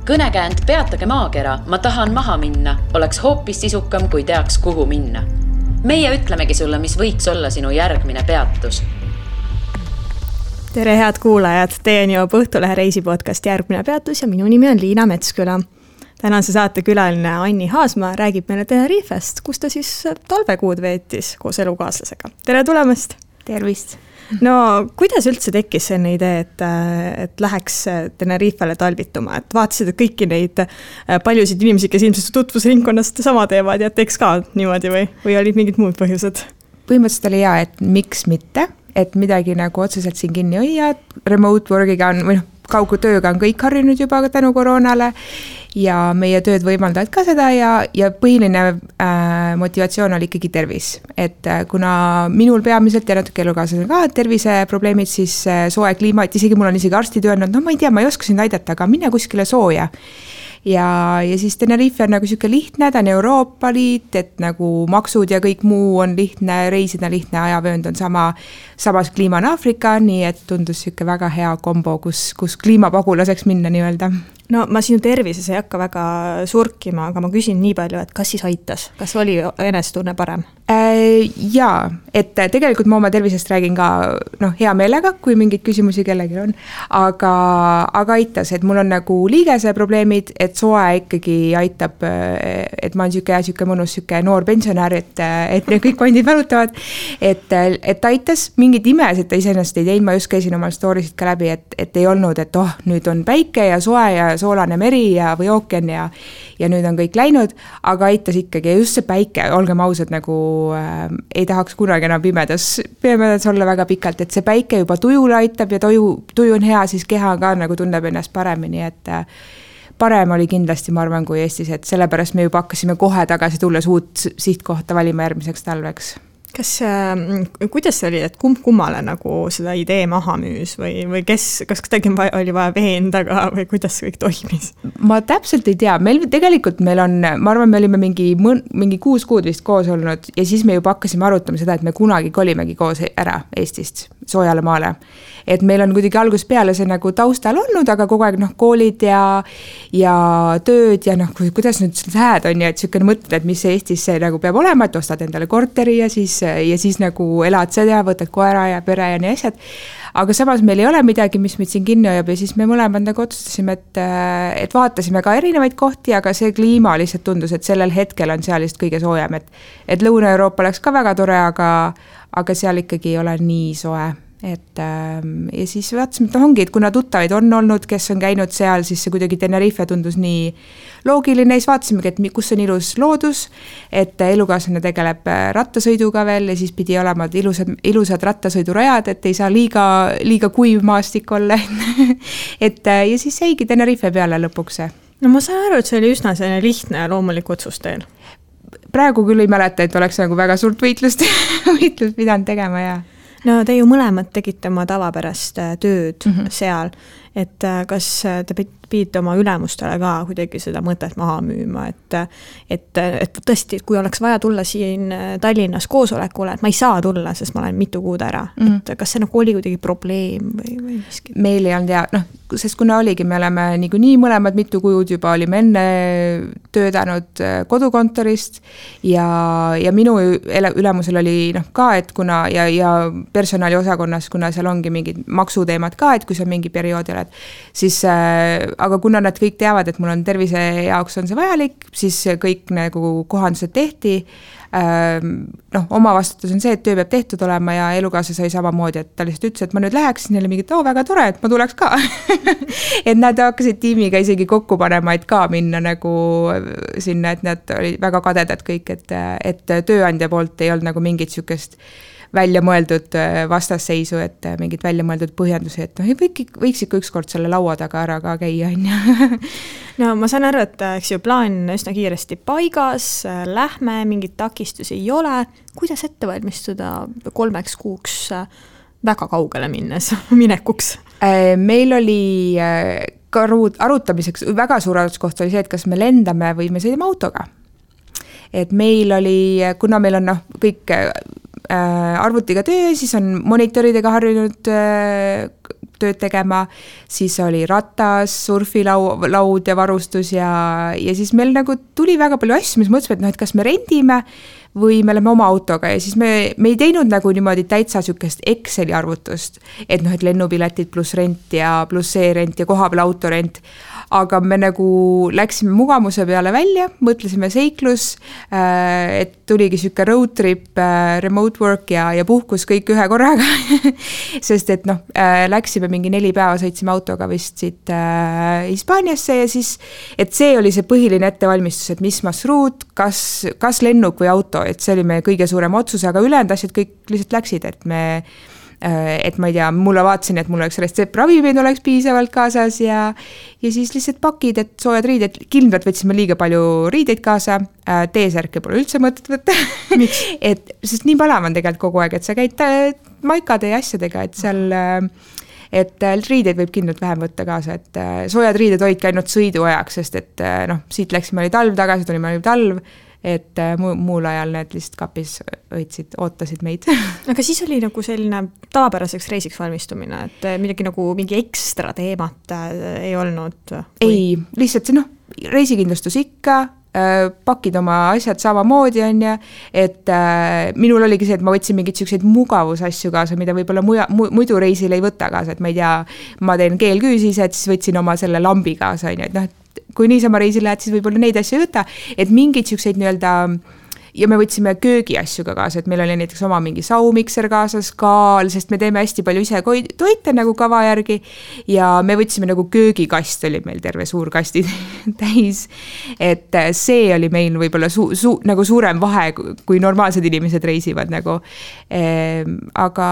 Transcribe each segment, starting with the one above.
Kõnekäänd Peatage maakera, ma tahan maha minna, oleks hoopis sisukam, kui teaks, kuhu minna. Meie ütlemegi sulle, mis võiks olla sinu järgmine peatus. Tere head kuulajad, teieni jõuab Õhtulehe reisipodcast Järgmine peatus ja minu nimi on Liina Metsküla. Tänase saate külaline Anni Haasma räägib meile Tenerifest, kus ta siis talvekuud veetis koos elukaaslasega. Tere tulemast! Tervist! No, kuidas üldse tekkis selline idee, et läheks Tenerifele talvituma? Et vaatasid, et kõiki neid paljusid inimesi, kes ilmselt tutvusringkonnast sama teevad ja teeks ka niimoodi või olid mingid muud põhjused? Põhimõtteliselt oli hea, et miks mitte, et midagi nagu otseselt siin kinni hoia, remote workiga on, või kaugutööga on kõik harjunud juba tänu koroonale ja meie tööd võimaldavad ka seda ja põhiline motivatsioon oli ikkagi tervis. Et kuna minul peamiselt ja natuke elukaaslasel ka terviseprobleemid, siis soe kliima, et isegi mul on isegi arstid öelnud, no ma ei tea, ma ei oska sind aidata, aga mine kuskile sooja. Ja siis Tenerife on nagu siuke lihtne, ta on Euroopa Liit, et nagu maksud ja kõik muu on lihtne, reisida lihtne, ajavöönd on samas kliima on Aafrika, nii et tundus siuke väga hea kombo, kus kliimapagulaseks minna nii-öelda. No ma sinu tervises ei hakka väga surkima, aga ma küsin nii palju, et kas siis aitas? Kas oli enesetunne parem? Jaa, et tegelikult ma oma tervisest räägin ka hea meelega, kui mingeid küsimusi kellelgi on, aga aitas, et mul on nagu liigese probleemid, et soe ikkagi aitab, et ma olen siuke mõnus noor pensionär, et kõik kondid valutavad, et aitas mingid imesid, ta iseenesest ei teinud, ma just käisin oma storysid ka läbi, et ei olnud, et nüüd on päike ja soe ja soolane meri või ookean ja nüüd on kõik läinud, aga aitas ikkagi just see päike, olgem ausad, nagu ei tahaks kunagi enam pimedas olla väga pikalt, et see päike juba tujule aitab ja tuju on hea, siis keha ka nagu tunneb ennast paremini, et parem oli kindlasti, ma arvan, kui Eestis, et sellepärast me juba hakkasime kohe tagasi tulles uut sihtkohta valima järgmiseks talveks. Kuidas see oli, et kummale nagu seda idee maha müüs või kas kuidagi oli vaja veendaga või kuidas kõik toimis? Ma täpselt ei tea, meil on, ma arvan, me olime mingi 6 kuud vist koos olnud ja siis me juba hakkasime arutama seda, et me kunagi kolimegi koos ära Eestist soojale maale. Et meil on kuidagi algusest peale see nagu taustal olnud, aga kogu aeg koolid ja tööd ja kuidas nüüd lähed on ja et siukene mõtled, et mis Eestis see nagu peab olema, et ostad endale korteri ja siis nagu elad seda, võtad koera ja pere ja nii asjad. Aga samas meil ei ole midagi, mis meid siin kinni hoiab ja siis me mõlemad nagu otsustasime, et vaatasime ka erinevaid kohti, aga see kliima lihtsalt tundus, et sellel hetkel on seal just kõige soojem, et Lõuna-Euroopa oleks ka väga tore, aga seal ikkagi ei ole nii soe. Ja siis vaatasime, et ongi, et kuna tuttavaid on olnud, kes on käinud seal, siis see kuidagi Tenerife tundus nii loogiline, siis vaatasimegi, et kus on ilus loodus, et elukaaslane tegeleb rattasõiduga veel ja siis pidi olema ilusad rattasõidurajad, et ei saa liiga kuiv maastik olla. Ja siis jäigi Tenerife peale lõpuks. No ma saan aru, et see oli üsna selline lihtne ja loomulik otsus teil. Praegu küll ei mäleta, et oleks nagu väga suurt võitlust pidanud tegema ja no te ju mõlemad tegite oma tavapärast tööd seal, et kas te pidite oma ülemustele ka kuidagi seda mõtet maha müüma, et tõesti, kui oleks vaja tulla siin Tallinnas koosolekule, et ma ei saa tulla, sest ma olen mitu kuud ära, et kas see oli kuidagi probleem või miski? Meil ei olnud sest kuna oligi, me oleme nii mõlemad mitu kuud juba olime enne töötanud kodukontorist ja minu ülemusel oli ka, et kuna ja personali osakonnas, kuna seal ongi mingid maksuteemad ka, et kui see on mingi periood oled, siis aga kuna nad kõik teavad, et mul on tervise jaoks on see vajalik, siis kõik nagu kohandused tehti. Oma vastutus on see, et töö peab tehtud olema ja elukaasa sai samamoodi, et ta lihtsalt ütles, et ma nüüd läheks, neile mingit, väga tore, et ma tuleks ka. Et nad hakkasid tiimiga isegi kokku panema, et ka minna nagu sinna, et nad olid väga kadedad kõik, et tööandja poolt ei olnud nagu mingit siukest välja mõeldud vastasseisu, et mingid välja mõeldud põhjendusi, et võiks ikka ükskord selle laua taga ära ka käia. No ma saan aru, et plaan üsna kiiresti paigas, lähme, mingid takistusi ei ole. Kuidas ette valmistuda 3 kuuks väga kaugele minekuks? Meil oli arutamiseks väga suur arutluskoht oli see, et kas me lendame või me sõidame autoga. Et meil oli, kuna meil on kõik arvutiga töö, siis on monitoridega harjunud tööd tegema, siis oli ratas, surfilaud ja varustus ja siis meil nagu tuli väga palju asju, mis mõtlesime, et noh, et kas me rendime või me oleme oma autoga ja siis me ei teinud nagu niimoodi täitsa sükest Exceli arvutust, et noh, et lennupiletid pluss rent ja pluss see rent ja kohapeal autorent, aga me nagu läksime mugavuse peale välja, mõtlesime seiklus, et tuligi süke road trip, remote work ja puhkus kõik ühe korraga, sest et noh, läksime mingi 4 päeva, sõitsime autoga vist siit Hispaaniasse ja siis, et see oli see põhiline ettevalmistus, et mis marsruut, kas lennuk või auto, et see oli meie kõige suurem otsus, aga ülejäänud asjad kõik lihtsalt läksid, et ma ei tea, mulle vaatasin, et mul oleks retseptravimeid oleks piisavalt kaasas ja siis lihtsalt pakid, et soojad riided, kindlalt võtsime liiga palju riideid kaasa, T-särke pole üldse mõtet võtta. Sest nii palav on tegelikult kogu aeg, et sa käid maikade ja asjadega, et seal et riideid võib kindlalt vähem võtta kaasa, et soojad riided hoidki ainult sõiduajaks, sest et noh, siit läksime, oli talv tagasi, tulime, oli talv, et muul ajal need lihtsalt kapis ootasid meid. Aga siis oli nagu selline tavapäraseks reisiks valmistumine, et midagi nagu mingi ekstra teemat ei olnud? Ei, lihtsalt see reisikindlustus ikka, pakid oma asjad samamoodi on ja, et minul oligi see, et ma võtsin mingid selliseid mugavusasju kaasa, mida võib-olla muidu reisil ei võta kaasa, et ma ei tea, ma teen keelküüsised, siis võtsin oma selle lambi kaasa, on ju, et noh, kui niisama reisil lähed, siis võib-olla neid asju ei võta, et mingeid selliseid nii-öelda ja me võtsime köögiasju ka kaasa, et meil oli näiteks oma mingi saumikser kaasas, kaal, sest me teeme hästi palju ise toite nagu kava järgi ja me võtsime nagu köögikast, oli meil terve suur kasti täis, et see oli meil võib-olla nagu suurem vahe, kui normaalsed inimesed reisivad nagu, aga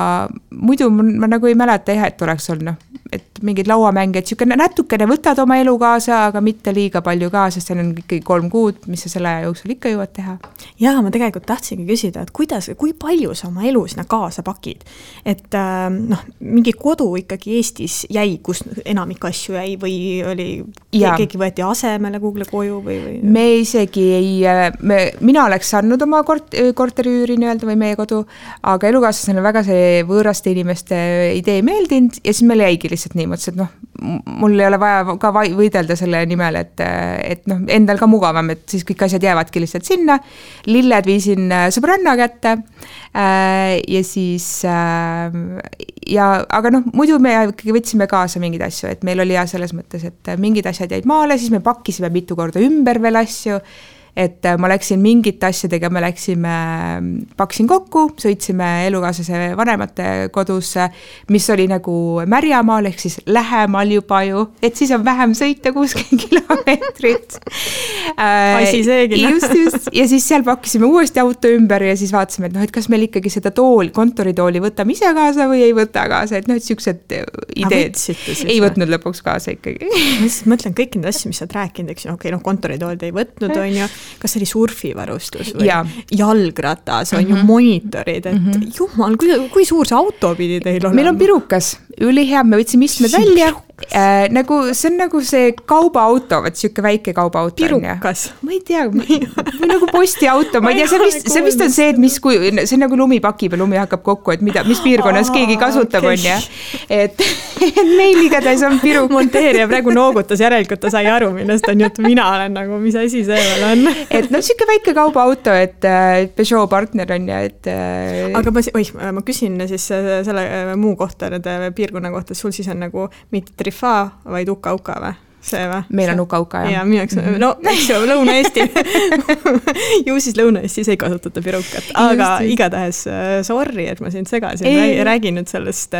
muidu ma nagu ei mäleta jah, et oleks olnud et mingid lauamänge, et natukene võtad oma elu kaasa, aga mitte liiga palju kaasa, sest see on ikkagi 3 kuud, mis sa selle aja jooksul ikka jõuad teha. Jaa, ma tegelikult tahtsingi küsida, et kui palju sa oma elu sinna kaasa pakid? Et mingi kodu ikkagi Eestis jäi, kus enamik asju jäi või oli keegi võeti asemele Google koju või? Me isegi mina oleks saanud oma korteriüüri nii-öelda või meie kodu, aga elukaaslasena väga see võõraste inimeste idee meeldinud ja siis meil jäigi lihtsalt nii, mõtlesin, et mul ei ole vaja ka võidelda selle nimel, et endal ka mugavam, et siis kõik asjad jäävadki lihtsalt sinna. Lilled viisin sõbranna kätte ja siis aga muidu me ikkagi võtsime kaasa mingid asju, et meil oli selles mõttes, et mingid asjad jäid maale, siis me pakkisime mitu korda ümber veel asju, et ma läksin mingite asjadega, paksin kokku, sõitsime elukaaslase vanemate kodusse, mis oli nagu Märjamaal, ehk siis lähemal juba ju, et siis on vähem sõita 60 kilomeetrit. Asi seegi. Just. Ja siis seal pakkisime uuesti auto ümber ja siis vaatasime, et kas meil ikkagi seda kontoritooli võtame ise kaasa või ei võta kaasa, et sellised ideed ei võtnud lõpuks kaasa ikkagi. Ma siis mõtlen kõik need asju, mis sa oled rääkinud, eks kontoritoolid ei võtnud, on ju, kas oli surfivarustus või jalgratas, on ju monitorid, et jumal, kui suur see auto pidi teil olema? Meil on pirukas, ülihea, me võtsime istmed välja, see on nagu see kaubaauto, siuke väike kaubaauto. Pirukas? Ma ei tea, või nagu postiauto, ma ei tea, see vist on see, et see on nagu lumipaki peal, lumi hakkab kokku, et mis piirkonnas keegi kasutab, on ja. Et meil igatahes on pirukas. Monteerija praegu noogutas, järelikult ta sai aru, millest on jutt, mina olen nagu, mis asi see veel on. Et siuke väike kaubaauto, et Peugeot partner on ja, et aga ma küsin siis selle muu kohta, nende piirkonna kohta, sul siis on nagu mitte Trifa, vaid Uka-Uka või? See või? Meil on Uka-Uka, jah. Ja mineks, eks ju, Lõuna-Eesti. Ju siis Lõuna-Eestis ei kasutata pirukat, aga igatahes sorry, et ma sind segasin, räägin nüüd sellest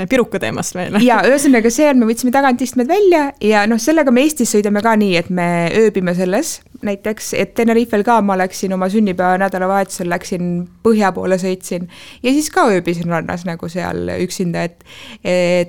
piruka teemast meile. Ja ühesõnaga see on, me võtsime tagant istmed välja ja sellega me Eestis sõidame ka nii, et me ööbime selles, näiteks, et Tenerifel ka ma läksin oma sünnipäeva nädalavahetusel, läksin põhja poole sõitsin ja siis ka ööbisin rannas nagu seal üksinda, et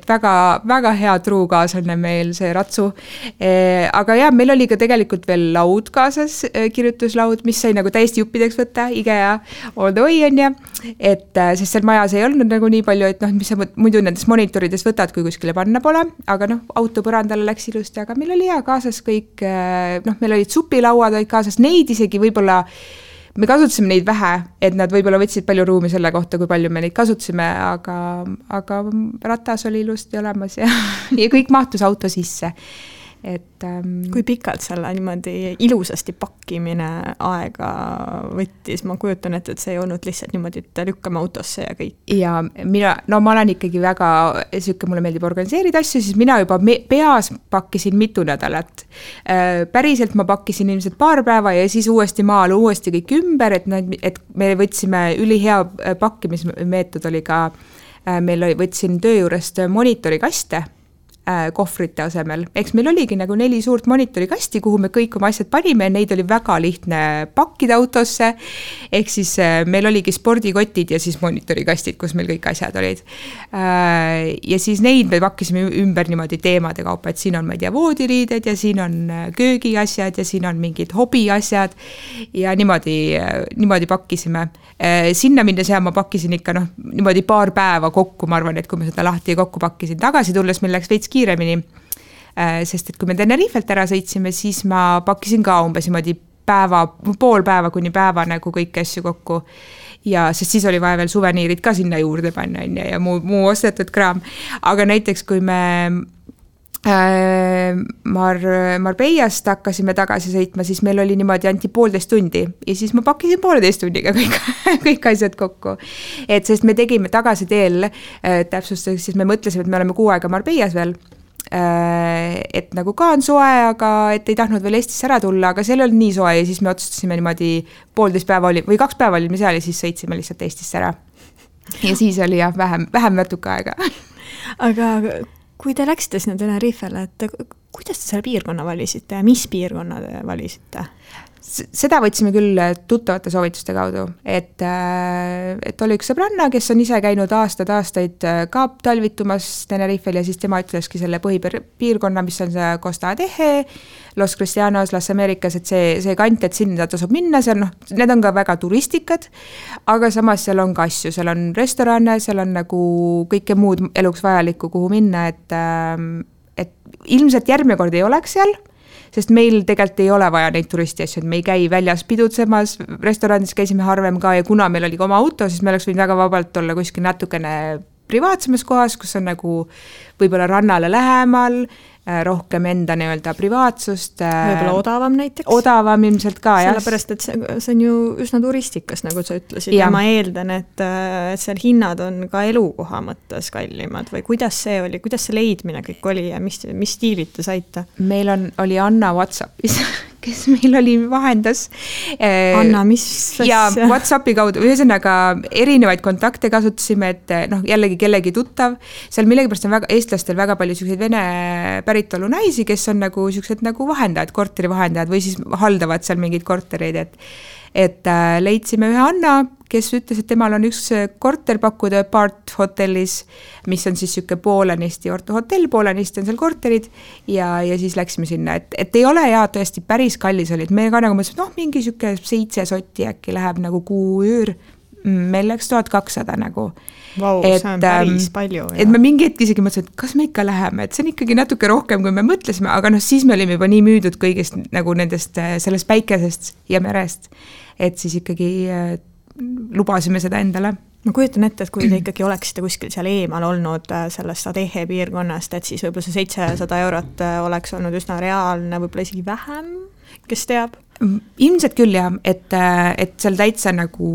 väga, väga hea truukaaslane meil see ratsu. Aga jah, meil oli ka tegelikult veel laud kaasas, kirjutuslaud, mis sai nagu täiesti juppideks võtta, IKEA, all the way on ja, et sest seal majas ei olnud nagu nii palju, et mis sa muidu nendes monitorides võtad, kui kuskile panna pole, aga auto põrandale läks ilusti, aga meil oli hea kaasas kõik, meil olid supilauad olid kaasas, neid isegi võib-olla me kasutasime neid vähe, et nad võib-olla võtsid palju ruumi selle kohta, kui palju me neid kasutasime, aga ratas oli ilusti olemas ja kõik mahtus auto sisse. Et, kui pikalt selle niimoodi ilusasti pakkimine aega võttis, ma kujutan, et see ei olnud lihtsalt niimoodi, et lükkame autosse ja kõik. Ja ma olen ikkagi väga, mulle meeldib organiseerida asju, siis mina juba peas pakkisin mitu nädalat. Päriselt ma pakkisin ilmselt paar päeva ja siis uuesti maal uuesti kõik ümber, et me võtsime ülihea pakkimismeetod oli ka, võtsin töö juurest monitorikaste, kohvrite asemel. Eks meil oligi nagu 4 suurt monitorikasti, kuhu me kõik oma asjad panime, neid oli väga lihtne pakkida autosse, ehk siis meil oligi spordikotid ja siis monitorikastid, kus meil kõik asjad olid. Ja siis neid me pakkisime ümber niimoodi teemade kaupa, et siin on, ma ei tea, voodiriided ja siin on köögiasjad ja siin on mingid hobiasjad ja niimoodi pakkisime. Sinna minnes ja ma pakkisin ikka niimoodi paar päeva kokku, ma arvan, et kui ma seda lahti kokku pakkisin, tagasi tulles meil läks veits kiiremini, sest et kui me Tenerifelt ära sõitsime, siis ma pakkisin ka umbes niimoodi pool päeva kuni päeva nagu kõiki asju kokku. Ja sest siis oli vaja veel suveniirid ka sinna juurde panna ja muu ostetud kraam. Aga näiteks kui me Marbeiast hakkasime tagasi sõitma, siis meil oli niimoodi anti 1,5 tundi ja siis ma pakkisin 1,5 tunniga kõik asjad kokku. Et sest me tegime tagasi teel, täpsustuseks, siis me mõtlesime, et me oleme 6 aega Marbeias veel, et nagu ka on soe, aga et ei tahtnud veel Eestisse ära tulla, aga seal oli nii soe ja siis me otsustasime niimoodi 1,5 päeva või 2 päeva olime seal ja siis sõitsime lihtsalt Eestisse ära. Ja siis oli jah, vähem natuke aega. Aga kui te läksite sinna Tenerifele, et kuidas te selle piirkonna valisite ja mis piirkonna te valisite? Seda võtsime küll tuttavate soovituste kaudu, et oli üks sõbranna, kes on ise käinud aastaid ka talvitumas Tenerifel ja siis tema ütleski selle põhipiirkonna, mis on see Costa Teje, Los Cristianos, Las Americas, et see kant, et sinna tasub minna, seal need on ka väga turistikad, aga samas seal on ka asju, seal on restorane, seal on nagu kõike muud eluks vajalikku, kuhu minna, et ilmselt järgmine kord ei oleks seal, sest meil tegelikult ei ole vaja neid turisti asju, et me ei käi väljas pidutsemas, restoranis käisime harvem ka ja kuna meil oli ka oma auto, siis me oleks võinud väga vabalt olla kuskil natukene privaatsemas kohas, kus on nagu võib-olla rannale lähemal, rohkem enda nii-öelda privaatsust. Võib-olla odavam näiteks? Odavam ilmselt ka, jah. Sellepärast, et see on ju üsna turistikas, nagu sa ütlesid, ja ma eeldan, et seal hinnad on ka elukoha mõttes kallimad või kuidas see oli, kuidas see leidmine kõik oli ja mis stiilid te saite? Meil oli Anna WhatsAppis, kes meil oli vahendas. Anna, mis? Ja WhatsAppi kaudu, ühesõnaga erinevaid kontakte kasutasime, et jällegi kellegi tuttav, seal millegipärast on eestlastel väga palju selliseid vene päritolu naisi, kes on nagu sellised nagu vahendajad, korteri vahendajad või siis haldavad seal mingeid kortereid, et leidsime ühe Anna, kes ütles, et temal on üks korter pakkuda Part hotellis, mis on siis siuke poolenisti hotell, poolenisti on seal korterid ja siis läksime sinna, et ei ole ja tõesti päris kallis oli, et me ka nagu mõtlesime, mingi siuke 7 sotti äkki läheb nagu kuuüür, meil läks 1200 nagu. Vau, see on päris palju. Et me mingi hetk isegi mõtlesime, et kas me ikka läheme, et see on ikkagi natuke rohkem, kui me mõtlesime, aga siis me olime juba nii müüdud kõigest nagu nendest sellest päikesest ja merest, et siis ikkagi lubasime seda endale. Ma kujutan ette, et kui te ikkagi oleksite kuskil seal eemal olnud sellest Adeje piirkonnast, et siis võib-olla see 700 eurot oleks olnud üsna reaalne, võib-olla isegi vähem, kes teab? Ilmselt küll jah, et seal täitsa nagu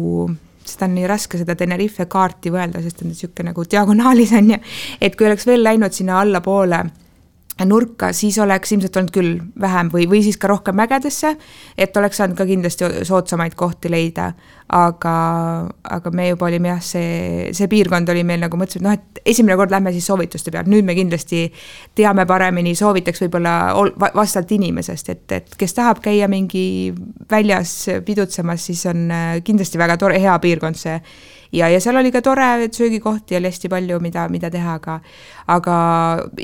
seda on nii raske seda Tenerife kaarti võelda, sest on siuke nagu diagonaalis on ja, et kui oleks veel läinud sinna alla poole nurka, siis oleks ilmselt olnud küll vähem või siis ka rohkem mägedesse, et oleks saanud ka kindlasti soodsamaid kohti leida, aga me juba olime jah, see piirkond oli meil nagu mõtlesime, et esimene kord lähme siis soovituste peal, nüüd me kindlasti teame paremini, soovitaks võib-olla vastavalt inimesest, et kes tahab käia mingi väljas pidutsemas, siis on kindlasti väga tore, hea piirkond see. Ja seal oli ka tore söögikohti ja oli hästi palju, mida teha, aga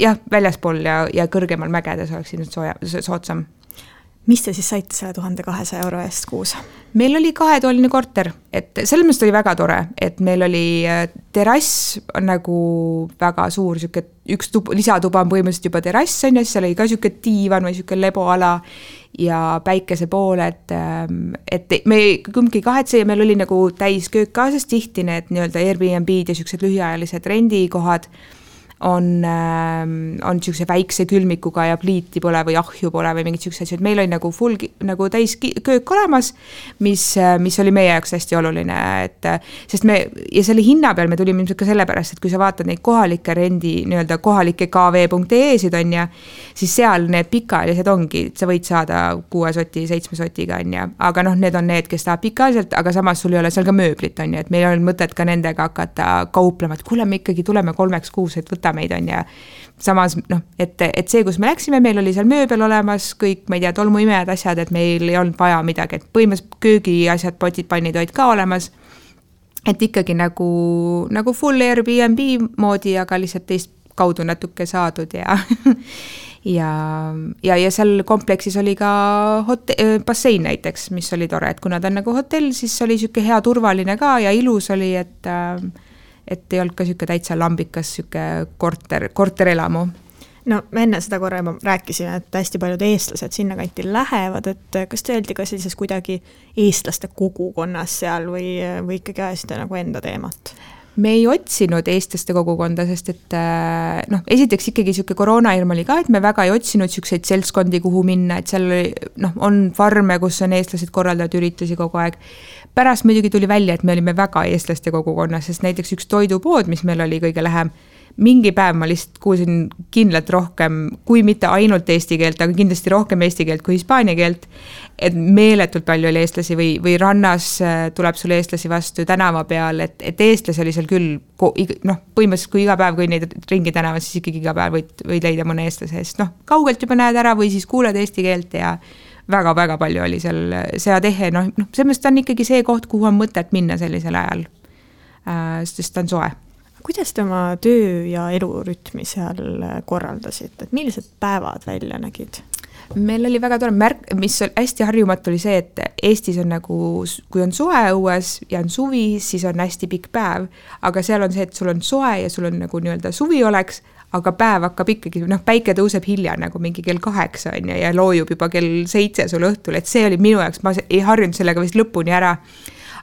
jah, väljaspool ja kõrgemal mägedes oleks ilmselt soodsam. Mis te siis saite selle 1200 € eest kuus? Meil oli 2-toaline korter, et selles mõttes oli väga tore, et meil oli terrass nagu väga suur, üks lisatuba on põhimõtteliselt juba terrass, on ja siis seal oli ka siuke diivan või siuke leboala ja päikese poole, et me kumbki kahetse ja meil oli nagu täis köök kaasas, tihti need nii-öelda Airbnb-d ja siuksed lühiajalised rendikohad on siukse väikse külmikuga ja pliiti pole või ahju pole või mingid siuksed asjad. Meil oli nagu full nagu täis köök olemas, mis oli meie jaoks hästi oluline, sest ja selle hinna peal me tulime ilmselt ka sellepärast, et kui sa vaatad neid kohalike rendi, nii-öelda kohalike kv.ee-sid on ja, siis seal need pikaajalised ongi, sa võid saada 6 soti, 7 sotiga on ja, aga need on need, kes tahab pikaajaliselt, aga samas sul ei ole seal ka mööblit on ja, et meil on mõtet ka nendega hakata kauplema, et kuule, me ikkagi tuleme 3 kuus, et võta meid on ja samas, et see, kus me läksime, meil oli seal mööbel olemas, kõik, ma ei tea, tolmuimejad asjad, et meil ei olnud vaja midagi, et põhimõtteliselt köögi asjad, potid, pannid olid ka olemas, et ikkagi nagu full Airbnb moodi, aga lihtsalt teist kaudu natuke saadud ja ja seal kompleksis oli ka bassein näiteks, mis oli tore, et kuna ta on nagu hotell, siis oli siuke hea turvaline ka ja ilus oli, et ei olnud ka siuke täitsa lambikas siuke korterelamu. No me enne seda korra juba rääkisime, et hästi paljud eestlased sinna kanti lähevad, et kas te öeldi ka sellises kuidagi eestlaste kogukonnas seal või ikkagi ajasite nagu enda teemat? Me ei otsinud eestlaste kogukonda, sest et esiteks ikkagi siuke koroonahirm oli ka, et me väga ei otsinud siukseid seltskondi, kuhu minna, et seal on farme, kus on eestlased korraldavad üritusi kogu aeg. Pärast muidugi tuli välja, et me olime väga eestlaste kogukonnas, sest näiteks üks toidupood, mis meil oli kõige lähem, mingi päev ma lihtsalt kuulsin kindlalt rohkem, kui mitte ainult eesti keelt, aga kindlasti rohkem eesti keelt kui hispaania keelt, et meeletult palju oli eestlasi või rannas tuleb sulle eestlasi vastu tänava peal, et eestlasi oli seal küll, põhimõtteliselt kui iga päev, kui neid ringi tänava, siis ikkagi iga päev võid leida mõne eestlase, sest kaugelt juba näed ära või siis kuuled eesti keelt ja väga-väga palju oli seal seatehe, sellest on ikkagi see koht, kuhu on mõtet minna sellisel ajal, sest ta on soe. Kuidas te oma töö ja elurütmi seal korraldasite, et millised päevad välja nägid? Meil oli väga tore märk, mis hästi harjumatu oli see, et Eestis on nagu, kui on soe õues ja on suvi, siis on hästi pikk päev, aga seal on see, et sul on soe ja sul on nagu nii-öelda suvi oleks, aga päev hakkab ikkagi, päike tõuseb hilja nagu mingi kell 8 on ja loojub juba kell 7 sul õhtul, et see oli minu jaoks, ma ei harjunud sellega vist lõpuni ära.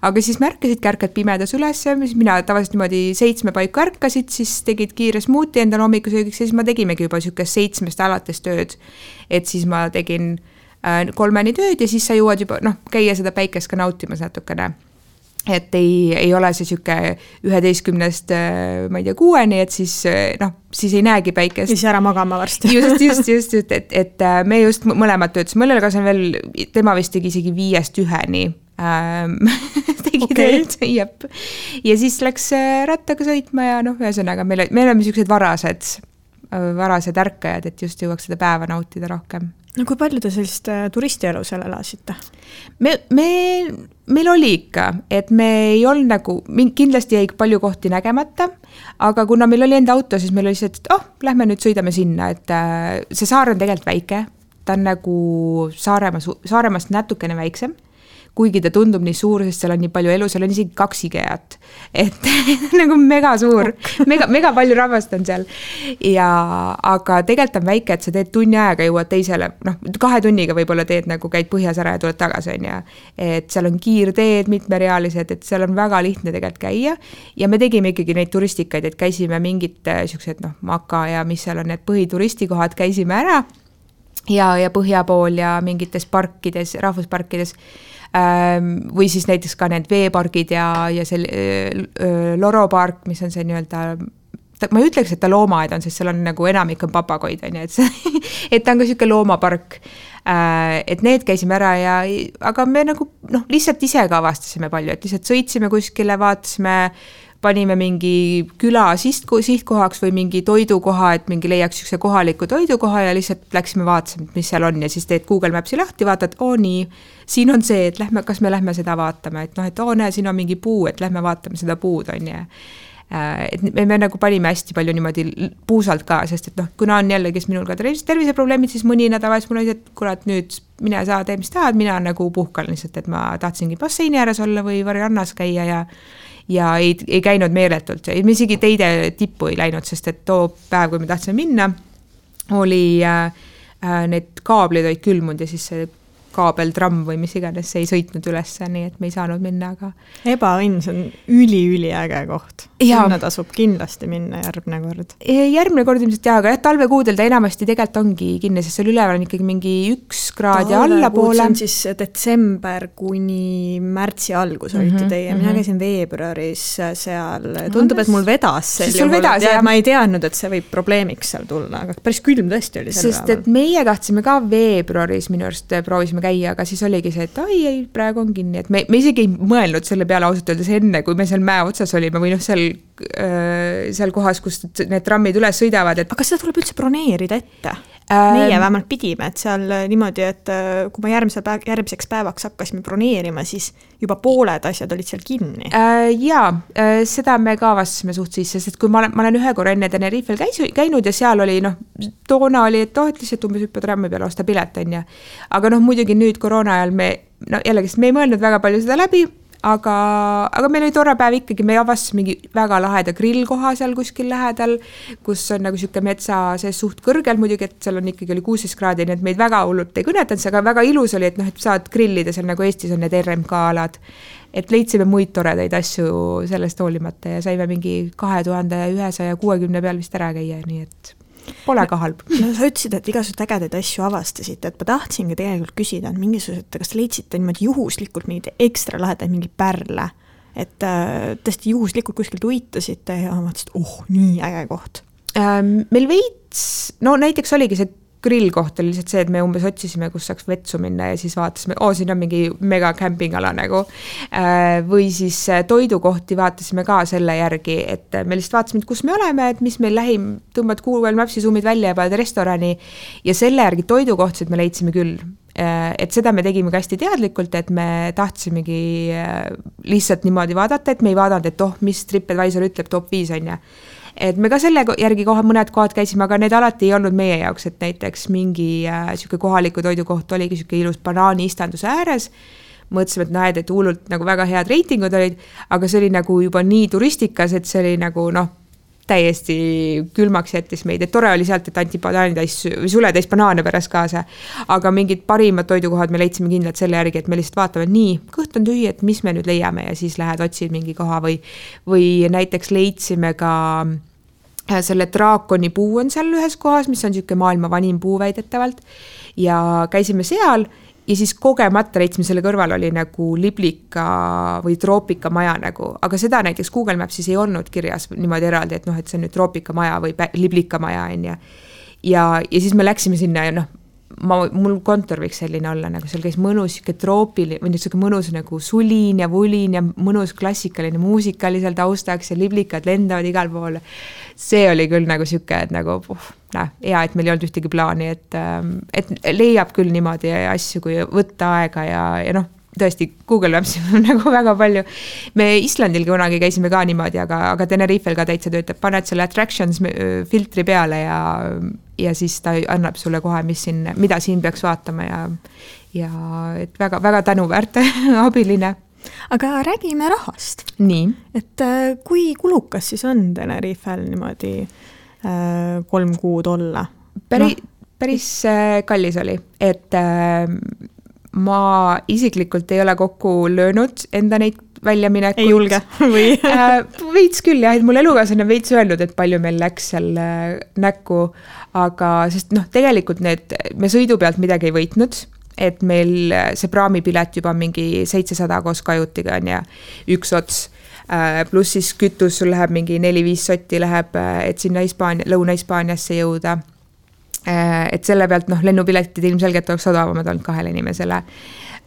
Aga siis märkasid, ärkad pimedas üles, mina tavaliselt niimoodi 7 paiku ärkasid, siis tegid kiire smuuti endal hommikusöögiks ja siis ma tegimegi juba siukest 7 alates tööd. Et siis ma tegin 3 tööd ja siis sa jõuad juba käia seda päikest ka nautimas natukene. Et ei ole see siuke 11 ma ei tea 6, et siis ei näegi päikest. Siis ära magama varsti. Just, et me just mõlemad töötasime, mõnel kas on veel, tema vist tegi isegi 5-1 tegi tööd, jep. Ja siis läks rattaga sõitma ja ühesõnaga me oleme siuksed varased ärkajad, et just jõuaks seda päeva nautida rohkem. No kui palju te sellist turistielu seal elasite? Meil oli ikka, et me ei olnud nagu, kindlasti jäi palju kohti nägemata, aga kuna meil oli enda auto, siis meil oli see, et lähme nüüd sõidame sinna, et see saar on tegelikult väike, ta on nagu Saaremaast natukene väiksem, kuigi ta tundub nii suur, sest seal on nii palju elu, seal on isegi 2 IKEA-t, et nagu mega suur, mega palju rahvast on seal. Aga tegelikult on väike, et sa teed tunni ajaga jõuad teisele, 2 tunniga võib-olla teed nagu käid põhjas ära ja tuled tagasi on ja et seal on kiirteed mitmerealised, et seal on väga lihtne tegelikult käia ja me tegime ikkagi neid turistikaid, et käisime mingid siuksed Maka ja mis seal on need põhituristikohad, käisime ära ja põhja pool ja mingites parkides, rahvusparkides või siis näiteks ka need veepargid ja see Loro park, mis on see nii-öelda, ma ei ütleks, et ta loomaaed on, sest seal on nagu enamik on papagoid, on, et ta on ka siuke loomapark, et need käisime ära aga me nagu lihtsalt ise ka avastasime palju, et lihtsalt sõitsime kuskile, vaatasime, panime mingi küla sihtkohaks või mingi toidukoha, et mingi leiaks siukse kohaliku toidukoha ja lihtsalt läksime vaatasime, mis seal on ja siis teed Google Mapsi lahti, vaatad, nii, siin on see, et kas me lähme seda vaatama, et näe, siin on mingi puu, et lähme vaatame seda puud, on ja et me nagu panime hästi palju niimoodi puusalt ka, sest et noh, kuna on jälle, kes minul ka terviseprobleemid, siis mõni nädal vahest mul oli, et kurat, nüüd mine saa, tee mis tahad, mina nagu puhkan lihtsalt, et ma tahtsingi basseini ääres olla või variannas käia ja ei käinud meeletult. Me isegi teide tippu ei läinud, sest et too päev, kui me tahtsime minna, oli need kaablid olid külmunud ja siis see kaabeltramm või mis iganes, see ei sõitnud üles, nii et me ei saanud minna, aga... Ebaõnn, see on üli-äge koht. Sinna tasub kindlasti minna järgmine kord. Järgmine kord ilmselt jah, aga talvekuudel ta enamasti tegelikult ongi kinni, sest seal üleval on ikkagi mingi 1 kraad ja allapoole. See on siis detsember kuni märtsi algus olite teie. Mina käisin veebruaris seal. Tundub, et mul vedas ma ei teadnud, et see võib probleemiks seal tulla, aga päris külm tõesti oli seal. Sest et meie tahtsime ka veebruaris minu arust proovisime käia, aga siis oligi see, et ei, praegu on kinni, et me isegi ei mõelnud selle peale ausalt öeldes enne, kui me seal mäe otsas olime või noh, seal kohas, kus need trammid üles sõidavad. Et... Aga seda tuleb üldse broneerida ette? Meie vähemalt pidime, et seal niimoodi, et kui ma järgmiseks päevaks hakkasime broneerima, siis juba pooled asjad olid seal kinni. Jaa, seda me ka vastasime suht sisse, sest kui ma olen ühe korra enne Tenerifel käinud ja seal oli, toona oli, et lihtsalt umbes hüppa trammi peale osta pilet, on ja. Aga muidugi nüüd koroona ajal me ei mõelnud väga palju seda läbi, aga meil oli tore päev ikkagi, me avastasime mingi väga laheda grillkoha seal kuskil lähedal, kus on nagu siuke metsa see suht kõrgel muidugi, et seal on ikkagi oli 16 kraadi, nii et meid väga hullult ei kõnetanud, aga väga ilus oli, et et saad grillida seal nagu Eestis on need RMK-alad, et leidsime muid toredaid asju sellest hoolimata ja saime mingi 2160 peal vist ära käia, nii et pole ka halb. No sa ütlesid, et igasugused ägedaid asju avastasite, et ma tahtsingi tegelikult küsida, et mingisugused, kas te leidsite niimoodi juhuslikult mingid ekstra lahedaid mingi pärle, et tõesti juhuslikult kuskilt uitasite ja mõtlesid, nii äge koht. Meil veits, näiteks oligi see grillkoht oli lihtsalt see, et me umbes otsisime, kus saaks vetsu minna ja siis vaatasime, siin on mingi mega campingala nagu. Või siis toidukohti vaatasime ka selle järgi, et me lihtsalt vaatasime, et kus me oleme, et mis meil lähim, tõmbad Google Mapsi zoomid välja ja paned restorani ja selle järgi toidukohtsid me leidsime küll. Et seda me tegime ka hästi teadlikult, et me tahtsimegi lihtsalt niimoodi vaadata, et me ei vaadanud, et mis TripAdvisor ütleb top 5 on ja. Et me ka selle järgi mõned kohad käisime, aga need alati ei olnud meie jaoks, et näiteks mingi siuke kohaliku toidukoht oligi siuke ilus banaani istanduse ääres. Mõtlesime, et hullult nagu väga head reitingud olid, aga see oli nagu juba nii turistikas, et see oli nagu täiesti külmaks jättis meid, et tore oli sealt, et anti suletäis banaane pärast kaasa, aga mingid parimad toidukohad me leidsime kindlalt selle järgi, et me lihtsalt vaatame, nii, kõht on tühi, et mis me nüüd leiame ja siis lähed otsid mingi koha või näiteks leidsime ka selle draakoni puu on seal ühes kohas, mis on siuke maailma vanim puu väidetavalt ja käisime seal ja siis kogemata leidsime selle kõrval oli nagu liblika või troopika maja nagu, aga seda näiteks Google Mapsis ei olnud kirjas niimoodi eraldi, et et see on nüüd troopika maja või liblika maja on ja siis me läksime sinna ja mul kontor võiks selline olla, nagu seal käis mõnus troopiline või nüüd mõnus nagu sulin ja vulin ja mõnus klassikaline muusika oli seal taustaks ja liblikad lendavad igal pool. See oli küll nagu siuke, et nagu hea, et meil ei olnud ühtegi plaani, et leiab küll niimoodi asju, kui võtta aega ja tõesti Google Maps on nagu väga palju. Me Islandil kunagi käisime ka niimoodi, aga Tenerifel ka täitsa töötab, paned selle attractions filtri peale ja siis ta annab sulle kohe, mida siin peaks vaatama ja et väga, väga tänuväärt abiline. Aga räägime rahast. Nii. Et kui kulukas siis on Tenerifel niimoodi 3 kuud olla? Päris kallis oli, et ma isiklikult ei ole kokku löönud enda neid väljaminekuid. Ei julge või? Veits küll jah, et mul elukaaslane veits öelnud, et palju meil läks seal näkku, aga sest tegelikult me sõidu pealt midagi ei võitnud, et meil see praamipilet juba mingi 700 koos kajutiga on ja üks ots, pluss siis kütus sul läheb mingi 4-5 sotti läheb, et sinna Lõuna-Hispaaniasse jõuda. Et selle pealt lennupiletid ilmselgelt oleks odavamad olnud 2 inimesele.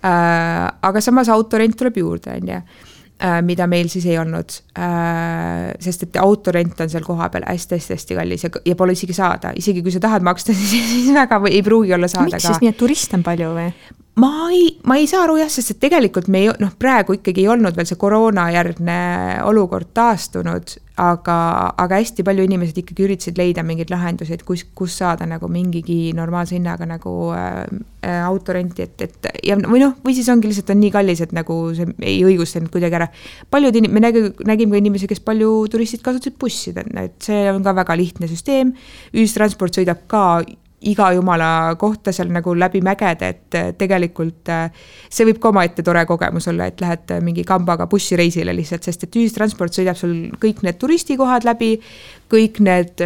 Aga samas autorent tuleb juurde, mida meil siis ei olnud, sest et autorent on seal koha peal hästi kallis ja pole isegi saada. Isegi kui sa tahad maksta, siis väga ei pruugi olla saada. Miks siis nii, et turiste on palju või? ma ei saa aru jah, sest et tegelikult me praegu ikkagi ei olnud veel see koroonajärgne olukord taastunud, aga hästi palju inimesed ikkagi üritasid leida mingeid lahendusi, et kus saada nagu mingigi normaalse hinnaga nagu autorenti, või siis ongi lihtsalt on nii kallis, et nagu see ei õigustanud kuidagi ära. Me nägime ka inimesi, kes palju turistid kasutasid bussid, et see on ka väga lihtne süsteem, ühistransport sõidab ka iga jumala kohta seal nagu läbi mägede, et tegelikult see võib ka omaette tore kogemus olla, et lähed mingi kambaga bussireisile lihtsalt, sest et ühistransport sõidab sul kõik need turistikohad läbi, kõik need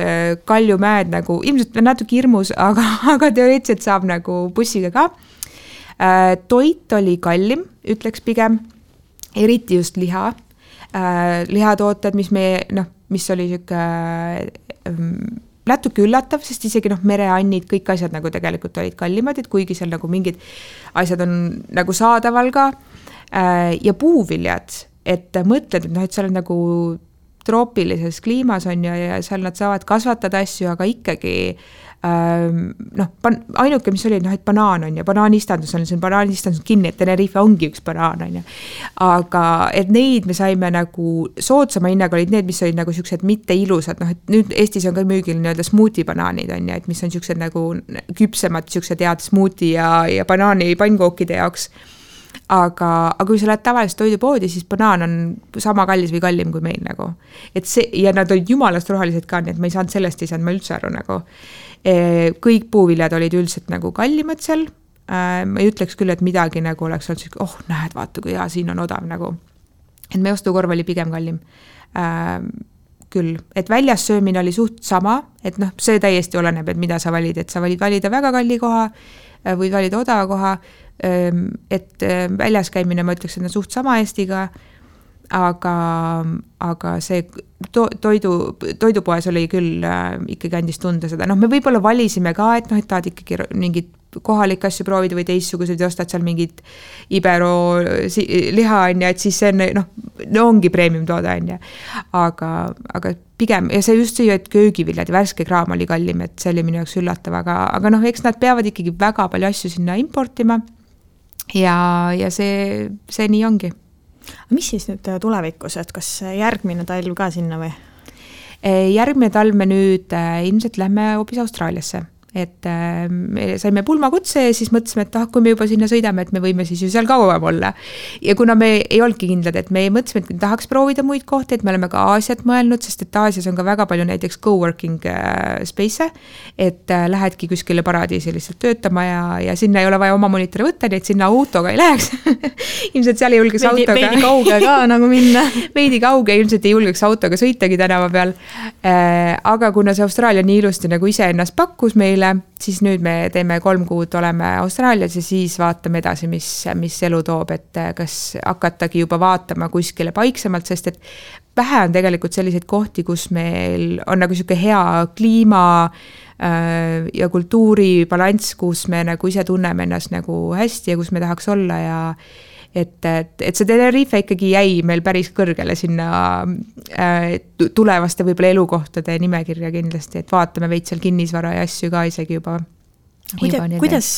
kaljumäed nagu, ilmselt natuke hirmus, aga teoreetiliselt saab nagu bussiga ka. Toit oli kallim, ütleks pigem, eriti just liha. Lihatooted, mis oli siuke natuke üllatav, sest isegi mereannid, kõik asjad nagu tegelikult olid kallimad, et kuigi seal nagu mingid asjad on nagu saadaval ka. Ja puuviljad, et mõtled, et seal on nagu troopilises kliimas on ja seal nad saavad kasvatada asju, aga ikkagi ainuke, mis oli, et banaan on ja banaanistandus on, see on banaanistandus kinni, et Tenerife ongi üks banaan on ja. Aga et neid me saime nagu soodsama hinnaga olid need, mis olid nagu siuksed mitte ilusad, et nüüd Eestis on ka müügil nii-öelda smuuti banaanid on ja, et mis on siuksed nagu küpsemad, siuksed head smuuti ja banaani pannkookide jaoks. Aga kui sa lähed tavaliselt toidupoodi, siis banaan on sama kallis või kallim kui meil nagu. Et see, ja nad olid jumalast rohelised ka, nii et ma ei saanud sellest, ei saanud ma üldse aru nagu. Kõik puuviljad olid üldiselt nagu kallimad seal. Ma ei ütleks küll, et midagi nagu oleks olnud, näed, vaata, kui hea, siin on odav nagu. Et meie ostukorv oli pigem kallim. Küll, et väljas söömine oli suht sama, et see täiesti oleneb, et mida sa valid, et sa valid valida väga kalli koha, võid valida odava koha, et väljas käimine, ma ütleks, et on suht sama Eestiga, aga see toidupoes oli küll ikkagi andis tunda seda. Me võib-olla valisime ka, et tahad ikkagi mingid kohalik asju proovida või teistsugused ja ostad seal mingid Ibero liha on ja, et siis see on, ongi premium toode on ja. Aga pigem, ja see just see, et köögiviljad ja värske kraam oli kallim, et see oli minu jaoks üllatav, aga eks nad peavad ikkagi väga palju asju sinna importima ja see nii ongi. Mis siis nüüd tulevikus, et kas järgmine talv ka sinna või? Järgmine talv me nüüd ilmselt lähme hoopis Austraaliasse. Et me saime pulmakutse ja siis mõtlesime, et kui me juba sinna sõidame, et me võime siis ju seal kauem olla. Ja kuna me ei olnudki kindlad, et me mõtlesime, et me tahaks proovida muid kohti, et me oleme ka Aasiat mõelnud, sest et Aasias on ka väga palju näiteks co-working space, et lähedki kuskile paradiisi lihtsalt töötama ja sinna ei ole vaja oma monitori võtta, nii et sinna autoga ei läheks. Ilmselt seal ei julgeks autoga. Veidi kauge ka nagu minna. Veidi kauge, ilmselt ei julgeks autoga sõitagi tänava peal. Aga kuna see Austraalia nii ilusti nagu ise ennast pakkus meile, siis nüüd me teeme 3 kuud oleme Austraalias ja siis vaatame edasi, mis elu toob, et kas hakatagi juba vaatama kuskile paiksemalt, sest et vähe on tegelikult selliseid kohti, kus meil on nagu siuke hea kliima ja kultuuri balanss, kus me nagu ise tunneme ennast nagu hästi ja kus me tahaks olla ja et see Tenerife ikkagi jäi meil päris kõrgele sinna tulevaste võib-olla elukohtade nimekirja kindlasti, et vaatame veid seal kinnisvara ja asju ka isegi juba. Kuidas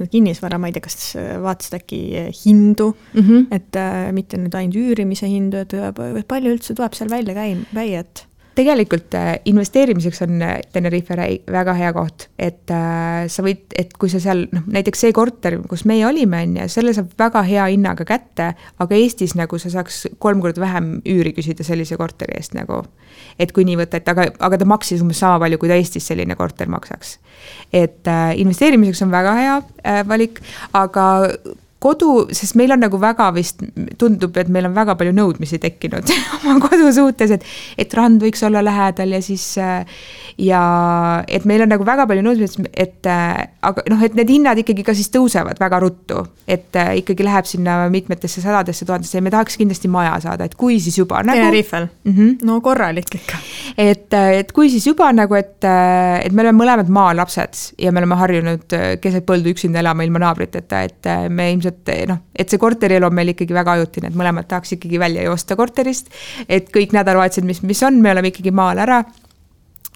need kinnisvara, ma ei tea, kas vaatasid äkki hindu, et mitte nüüd ainult üürimise hindu, et palju üldse tuleb seal välja käia, et tegelikult investeerimiseks on Tenerife väga hea koht, et sa võid, et kui sa seal, näiteks see korter, kus meie olime, selle saab väga hea hinnaga kätte, aga Eestis nagu sa saaks 3 korda vähem üüri küsida sellise korteri eest nagu, et kui nii võtta, aga ta maksis umbes sama palju, kui ta Eestis selline korter maksaks. Et investeerimiseks on väga hea valik, aga kodu, sest meil on nagu väga vist, tundub, et meil on väga palju nõudmisi tekkinud oma kodu suhtes, et rand võiks olla lähedal ja siis ja et meil on nagu väga palju nõudmisi, et et need hinnad ikkagi ka siis tõusevad väga ruttu, et ikkagi läheb sinna mitmetesse 100-desse 1000-desse ja me tahaks kindlasti maja saada, et kui siis juba nagu Tenerifel? No korralik ikka. Et kui siis juba nagu, et me oleme mõlemad maalapsed ja me oleme harjunud keset põldu üksinda elama ilma naabriteta, et me ilmselt et see korterielu on meil ikkagi väga ajutine, et mõlemad tahaks ikkagi välja joosta korterist, et kõik nädalavahetused, mis on, me oleme ikkagi maal ära.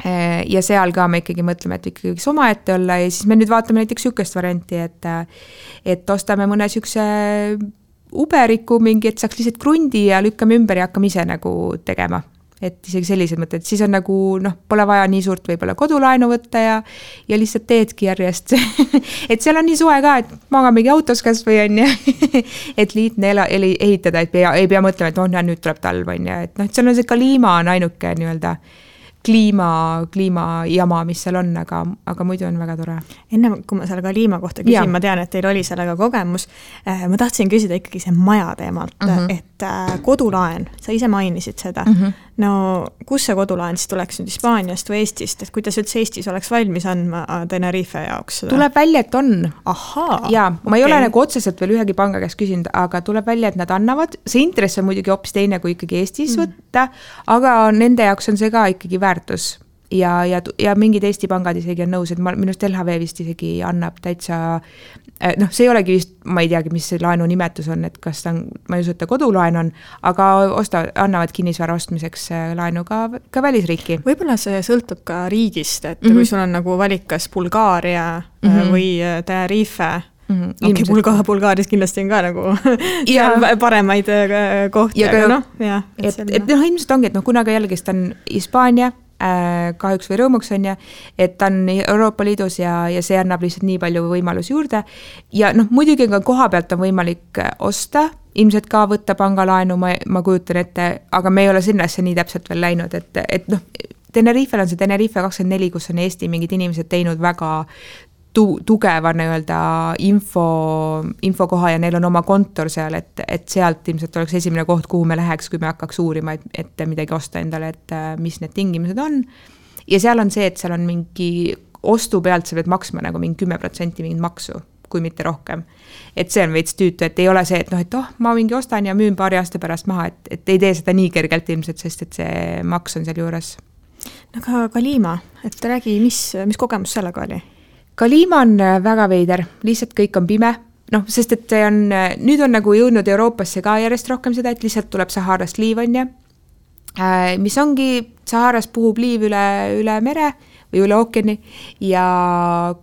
ja seal ka me ikkagi mõtleme, et ikkagi võiks omaette olla ja siis me nüüd vaatame näiteks sükest varianti, et ostame mõne sükse uberiku mingi, et saaks lihtsalt krundi ja lükkame ümber ja hakkame ise nagu tegema. Et isegi sellised mõtted, siis on nagu, pole vaja nii suurt võib-olla kodulaenu võtta ja lihtsalt teedki järjest. Et seal on nii soe ka, et magamegi autos kas või on ja, et liitne ehitada, et ei pea mõtlema, et nüüd tuleb talv on ja, et seal on see kliima on ainuke nii-öelda kliimajama, mis seal on, aga muidu on väga tore. Enne, kui ma selle kliima kohta küsin, ma tean, et teil oli sellega kogemus. Ma tahtsin küsida ikkagi see maja teemalt, et kodulaen, sa ise mainisid seda. No, kus see kodulaen siis tuleks nüüd Hispaaniast või Eestist, et kuidas üldse Eestis oleks valmis andma Tenerife jaoks seda? Tuleb välja, et on. Ahaa. Ja, ma ei ole nagu otseselt veel ühegi panga käest küsinud, aga tuleb välja, et nad annavad. See intress on muidugi hoopis teine, kui ikkagi Eestis võtta, aga nende jaoks on see ka ikkagi väärtus. Ja mingid Eesti pangad isegi on nõus, et minust LHV vist isegi annab täitsa, see ei olegi vist, ma ei teagi, mis see laenu nimetus on, et kas ta on, ma ei usu, et ta kodulaen on, aga annavad kinnisvara ostmiseks laenu ka välisriiki. Võib-olla see sõltub ka riigist, et kui sul on nagu valik kas Bulgaaria või Tenerife, Bulgaarias kindlasti on ka nagu paremaid kohti, aga ilmselt ongi, et kunagi jälgist on Hispaania, kahjuks või rõõmuks on et ta on Euroopa Liidus ja see annab lihtsalt nii palju võimalusi juurde ja muidugi ka koha pealt on võimalik osta, ilmselt ka võtta pangalaenu, ma kujutan ette, aga me ei ole sinnasse nii täpselt veel läinud, et Tenerifel on see Tenerife 24, kus on Eesti mingid inimesed teinud väga tugeva nii-öelda infokoha ja neil on oma kontor seal, et sealt ilmselt oleks esimene koht, kuhu me läheks, kui me hakkaks uurima, et midagi osta endale, et mis need tingimused on. Ja seal on see, et seal on mingi ostu pealt sa pead maksma nagu mingi 10% mingit maksu, kui mitte rohkem. Et see on veits tüütu, et ei ole see, et ma mingi ostan ja müün paari aasta pärast maha, et ei tee seda nii kergelt ilmselt, sest et see maks on seal juures. Aga Kalima, et räägi, mis kogemus sellega oli? Kalima on väga veider, lihtsalt kõik on pime, sest et nüüd on nagu jõudnud Euroopasse ka järjest rohkem seda, et lihtsalt tuleb Saharast liiv on mis ongi, Saharas puhub liiv üle mere või üle ookeani ja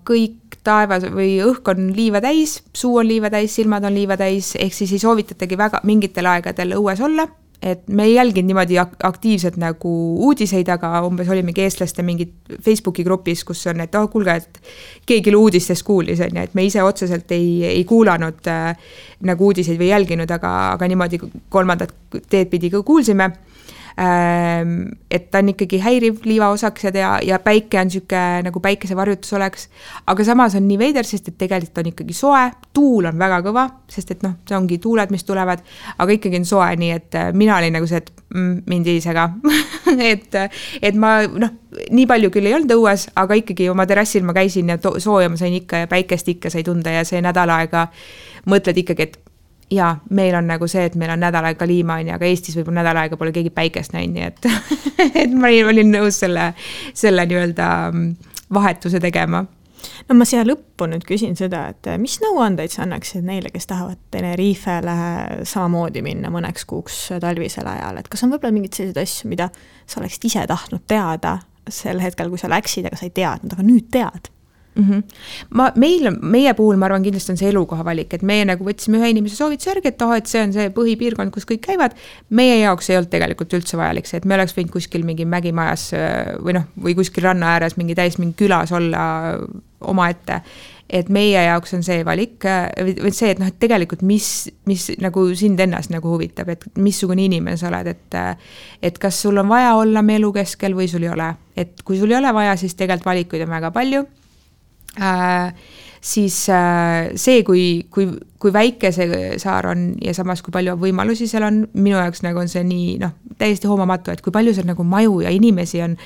kõik taevas või õhk on liiva täis, suu on liiva täis, silmad on liiva täis, ehk siis ei soovitatagi väga mingitel aegadel õues olla. Et me ei jälginud niimoodi aktiivselt nagu uudiseid, aga umbes olimegi eestlaste mingid Facebooki grupis, kus on, et kuulge, et keegi uudistest kuulis, et me ise otseselt ei kuulanud nagu uudiseid või jälginud, aga niimoodi kolmandat teed pidi kuulsime. Et ta on ikkagi häiriv liivaosaksed ja päike on süke nagu päikesevarjutus oleks, aga samas on nii veider, sest et tegelikult on ikkagi soe, tuul on väga kõva, sest et see ongi tuuled, mis tulevad, aga ikkagi on soe, nii et mina olin nagu see, et mind ei sega et ma nii palju küll ei olnud õues, aga ikkagi oma terrassil ma käisin ja sooja ma sain ikka ja päikest ikka sai tunda ja see nädal aega mõtled ikkagi, et ja meil on nagu see, et meil on nädal aega kliima, aga Eestis võib-olla nädal aega pole keegi päikest näinud, nii et ma olin nõus selle nii-öelda vahetuse tegema. No ma siia lõppu nüüd küsin seda, et mis nõuandeid sa annaksid neile, kes tahavad Tenerifele samamoodi minna mõneks kuuks talvisel ajal, et kas on võib-olla mingid sellised asju, mida sa oleksid ise tahtnud teada sel hetkel, kui sa läksid, aga sa ei teadnud, aga nüüd tead? Meie puhul ma arvan kindlasti on see elukoha valik, et meie nagu võtsime ühe inimese soovituse järgi, et see on see põhipiirkond, kus kõik käivad. Meie jaoks ei olnud tegelikult üldse vajalik see, et me oleks võinud kuskil mingi mägimajas või kuskil ranna ääres mingi külas olla oma ette. Et meie jaoks on see valik, või see, et tegelikult mis nagu sind ennast nagu huvitab, et missugune inimene sa oled, et kas sul on vaja olla me elu keskel või sul ei ole. Et kui sul ei ole vaja, siis tegelikult valikuid on väga palju. Siis see, kui väike see saar on ja samas kui palju võimalusi seal on, minu jaoks nagu on see nii täiesti hoomamatu, et kui palju seal nagu maju ja inimesi on,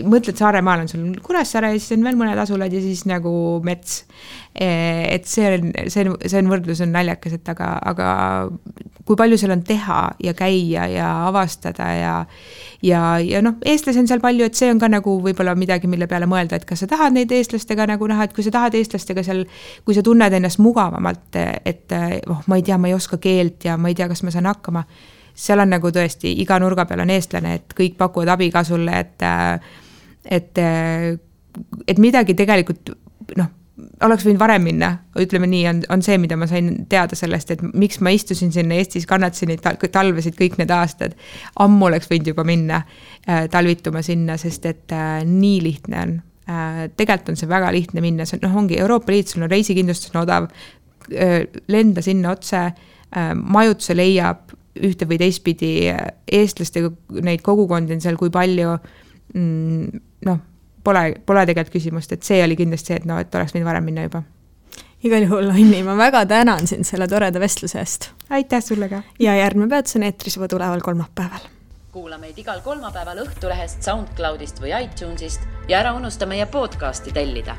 mõtled Saaremaal on sul Kuressaare ja siis on veel mõned asulad ja siis nagu mets. Et see võrdlus on naljakas, et aga kui palju seal on teha ja käia ja avastada ja eestlasi on seal palju, et see on ka nagu võib-olla midagi, mille peale mõelda, et kas sa tahad neid eestlastega nagu näha, et kui sa tahad eestlastega seal, kui sa tunned ennast mugavamalt, et ma ei tea, ma ei oska keelt ja ma ei tea, kas ma saan hakkama, seal on nagu tõesti, iga nurga peal on eestlane, et kõik pakuvad abi ka sulle, et et midagi tegelikult oleks võinud varem minna, ütleme nii, on see, mida ma sain teada sellest, et miks ma istusin sinna Eestis, kannatasin neid talvesid kõik need aastad. Ammu oleks võinud juba minna talvituma sinna, sest et nii lihtne on. Tegelikult on see väga lihtne minna, see ongi Euroopa Liit, sul on reisikindlustus on odav, lenda sinna otse, majutuse leiab ühte või teistpidi eestlastega, neid kogukondi on seal kui palju, Pole tegelikult küsimust, et see oli kindlasti see, et et oleks võinud varem minna juba. Igal juhul, Anni, ma väga tänan sind selle toreda vestluse eest. Aitäh sulle ka. Ja järgmine peatus on eetris juba tuleval kolmapäeval. Kuula meid igal kolmapäeval Õhtulehest, SoundCloudist või iTunesist ja ära unusta meie podcasti tellida.